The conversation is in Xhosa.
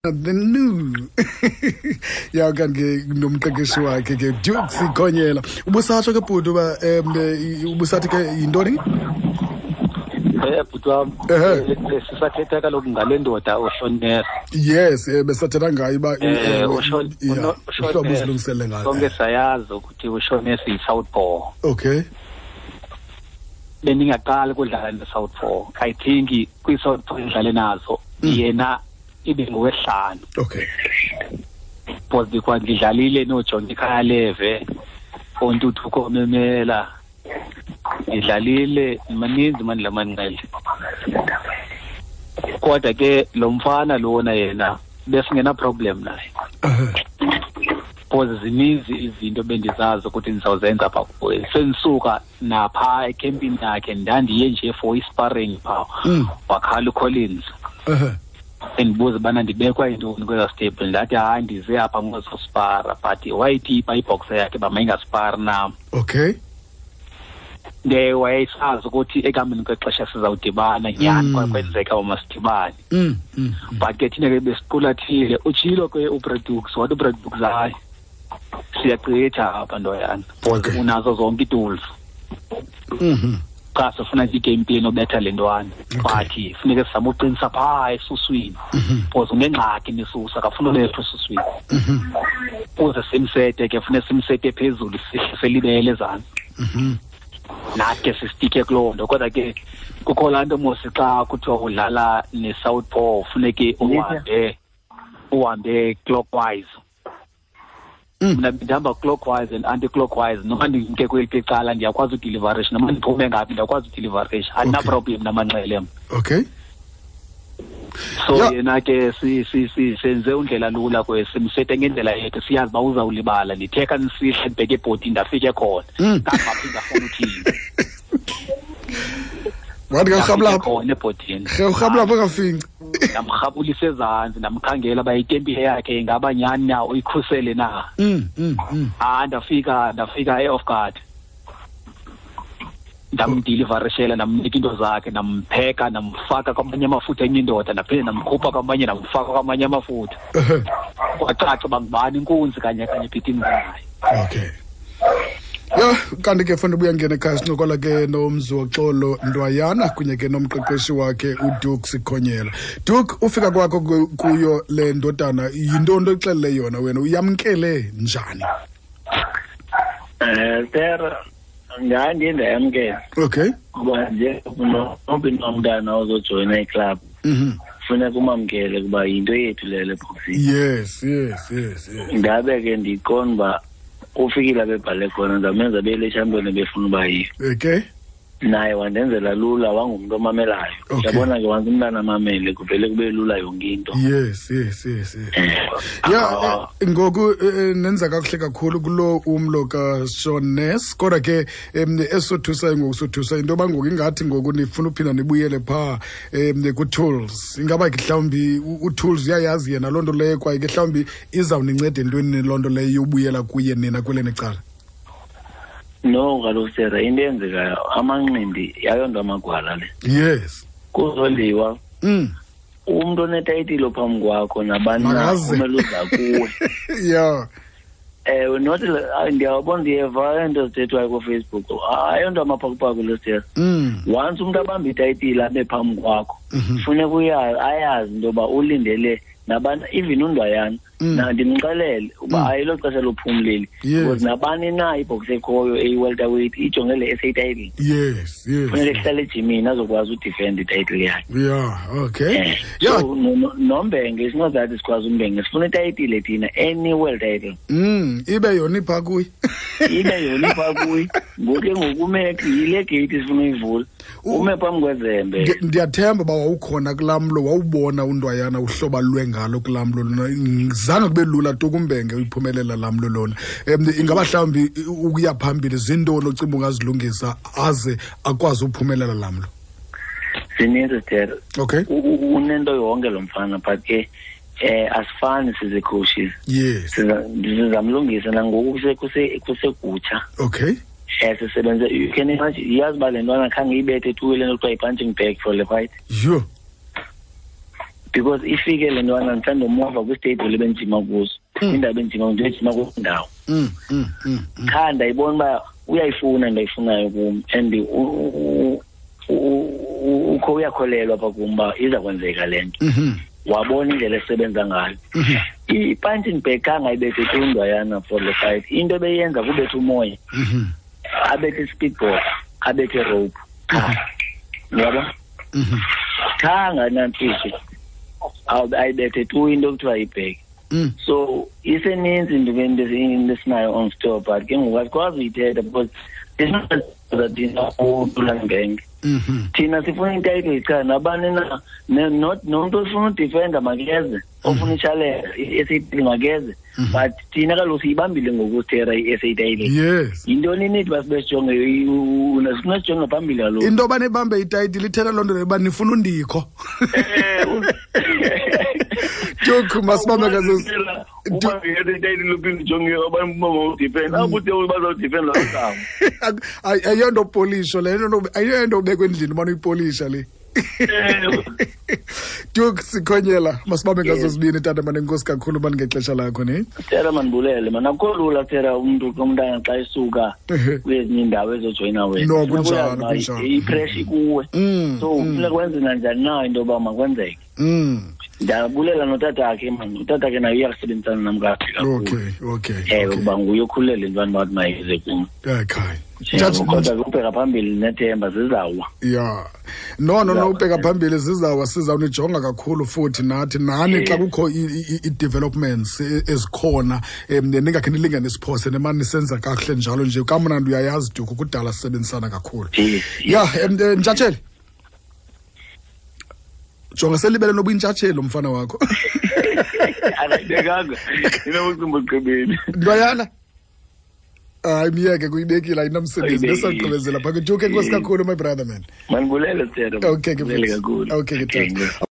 The new ya kanti ke nomqeqeshi wakhe ke Duke Sikhonyela. Ubusatsho ke bhuti uba ubusathi ke yintoni? Bhuti wam, sisathetha kaloku ngale ndoda uShoness. Yes, besathetha ngayo uba uhlobo uzilungisele ngayo. Sonke sayazi ukuthi uShoness yi-southpaw. Okay. Bendingaqali kudlala ne-southpaw. I think kwi-southpaw endidlale nazo yena ibe ngowesihlanu. Okay. Because because ndidlalile nooJohnny Khaleve, oNtuthuko Memela. Ndidlalile maninzi mani la manqele. Kodwa ke lo mfana lona yena besingena problem naye. Because zininzi izinto bendizazi ukuthi ndizawuzenza pha kuye. Sendisuka napha ekhempini yakhe ndandiye nje for i-sparring pha. Wakhala uCollins. Endibuza ubana ndibekwa yintoni kweza stable, ndathi hayi ndize apha ngozospara, but wayithipa ibhoxa yakhe uba mayingaspari nam. Okay. Nde wayesazi ukuthi ekuhambeni kwexesha sizawudibana nyhani, kwakwenzeka uba masidibane. But ke thina ke besiqulathile, utshilo ke uBradux, wathi uBradux hayi siyagqitha apha ntoyana, because unazo zonke ii-tools. Cha sifuna nje i-game plan obetha le ntwana. But funeke sizame uqinisa phaa esuswini. Because unengxaki nesusa, akafuni ubethwa esuswini. Ukuze simsete ke, funeka simsete phezulu, sihle selibele ezantsi. Nathi ke sisitike kuloo nto. Kodwa ke kukho laa nto mos xa kuthiwa udlala ne-southpaw funeke uhambe clockwise. Mna ndihamba clockwise and anti-clockwise. Noma ndimke kweliphi icala ndiyakwazi udeliverisha, noma ndiphume ngaphi ndiyakwazi udeliverisha. Andina-problem namanxele mna. Okay. So yena ke senze undlela lula kwe simsete ngendlela yethu, siyazi uba uzawulibala. Ndithe xa ndisihla ndibheke ebhodini ndafike khona. Ndangaphinda ndafuna uthini. Wathi ke urhabula Ndafike khona ebhodini. Rhe, urhabula apho kafinci. Ndamrhabulisa ezantsi, ndamkhangela uba itempile yakhe ingaba nyhani na, uyikhusele na. Ndafika e-off guard. Ndamdeliverishela, ndamnika into zakhe, ndampheka, ndamfaka kwamanye amafutha enye indoda, ndaphinde ndamkhupha kwamanye, ndamfaka kwamanye amafutha. Kwacaca uba ngubani inkunzi kanye kanye ebhidini naye. Okay. Ya, kanti ke funa ubuya ngena ekhaya sincokola ke noMziwoxolo Ndwayana kunye ke nomqeqeshi wakhe uDuke Sikhonyela. Duke, ufika kwakho kuyo le ndodana, yintoni oyixelele yona wena, uyamkele njani? Sir, ndandiye ndayamkela. Okay. Kuba nje nomntu nomntana ozojoyina iclub. Funeka umamkele kuba yinto yethu leyo le boxing. Yes, yes, yes, yes. Ndabe ke ndiqonda uba ufikile abebhale khona, ndamenza bele champion befuna uba yiyo. Okay. Naye wandenzela lula, wangumntu omamelayo. Okay. Yabona ke once umntana amamele kuvele kube lula yonke into. Yes, yes, yes, yes. Yeah, ngoku nenza kakuhle kakhulu kulo umlo kaShoness, kodwa ke esothusayo ngoku sothusa into yoba ngoku ingathi ngoku nifuna uphinda nibuyele phaa ku-Tools. Ingaba ke mhlawumbi uTools uyayazi yena loo nto leyo, kwaye ke mhlawumbi izawuninceda entweni loo nto leyo yobuyela kuye nina kweleni cala? No, kaloku Sarah, into eyenzekayo amanqindi yayonto amagwala le. Yes. Kuzoliwa. Umntu onetayitile phambi kwakho nabani na Makaze. kumele uza kuwe. Yeah. Ewe, not ndiyabona, ndiyeva into ezithethwayo kuFacebook. Ayonto amaphakupaku le Sarah. Once umntu abamba itayitile abe phambi kwakho, funeka ayazi into yoba ulindele nabani, even uNdwayana. Na ndimxelele uba ayilo xesha lophumleli. Because nabani na ibox ekhoyo eyi-welterweight ijonge le SA title. Yes, yes. Funeka ehlale ejimini azokwazi udefend ititle yakhe. Yeah, okay. Yeah. So, noMbenge, it's not that sikwazi uMbenge, sifuna itayitile thina, any world title. Ibe yona ipha kuye. Ibe yona ipha kuye. Ngoku ke ngoku ume yile gate sifuna uyivula. Ume phambi kwezembe. Ndiyathemba uba wawukhona kulaa mlo, wawubona uNdwayana uhlobo alwe ngalo kulaa mlo lona. Zange kube lula tu kuMbenge uyiphumelela laa mlo lona. Ingaba mhlawumbi ukuya phambili zintoni ocinga ungazilungisa aze akwazi uphumelela laa mlo? Zininzi, Terry. Okay. Unento yonke lo mfana, but ke asifani sizi-coaches. Yes. Sizamlungisa nangoku kusekutsha. Okay. Sisebenze, you can imagine, iyazi uba le ntwana khange ibethe tu le nto kuthiwa yi-punching bag for le fight. Yho. Because ifike le ntwana ndisandimova kwistable ebendijima kuso, kwindawo ebendijima, ndiyojima kuloo ndawo. Qha ndayibona uba uyayifuna into ayifunayo kum, and ukho uyakholelwa apha kum uba iza kwenzeka le nto. Wabona indlela esebenza ngayo. I-punching bag khange ayibethe tu ndwayana for the fight. Into ebeyenza kubetha umoya, abethe i-speedboard, abethe rope qha, uyabo? Khange nantsisi ayibethe tu into ekuthiwa yi-bag. So iseninzi into esinayo on store, but ke ngoku asikwazi uyithetha because thina uThulan. Thina sifuna i-title cha nabani na, not nomntu ofuna udefenda makeze, ofuna i-challenge i-SA makeze, but thina kaloku siyibambile ngoku sithera i-SA title. Yintoni nithi uba sibe sijonge, sifuna sijonge phambili kaloku. Into yoba nibambe itayitile ithetha loo nto leyo uba nifuna undikho. Duke, masibambe ngazo. Uba itayitile uphinde ujonge abantu bawudefenda, akude bazawudefenda loo. Ayonto polisho le, ayonto ubekwa endlini ubana uyipolisha le. Duke Sikhonyela, masibambe ngazo zibini, tata mane, enkosi kakhulu mani ngexesha lakho ne. Tera, mandibulele man, akukho lula tera umntu umntana xa esuka kwezinye iindawo ezojoyina wena. No, Funeka kunjalo, uyazi uba kunjalo. i-pressure ikuwe, so funeka wenze nanjani na into yoba makwenzeke. Ndiyabulela notatakhe man, utatakhe naye uyakusebenzisana nam kakuhle kakhulu. Ewe, kuba nguye okhulele intwana bathi mayize kum. Ewe, kodwa ke ubheka phambili nethemba zizawa. Ya, no, Zizawa, ubheka yeah. phambili zizawa, sizawunijonga kakhulu futhi nathi nani xa kukho i-developments ezikhona, ningakhe nilingane siphose nemani nisenza kakuhle njalo nje. Kamnandi uyayazi Duke, kudala sisebenzisana kakhulu. Yes. Ya, ntshatsheli, jonga selibele noba intshatsheli umfana wakho. Akayibekanga inobucimba ugqibeni. Ntwayana, hayi, miyeke, kuyibekile, ayinamsebenzi. Ayibekile. Besagqibezela phaka. Duke, enkosi kakhulu, my brother man. Mandibulele, Tera. Okay ke Ndibulele mfethu. kakhulu. Okay ke tata.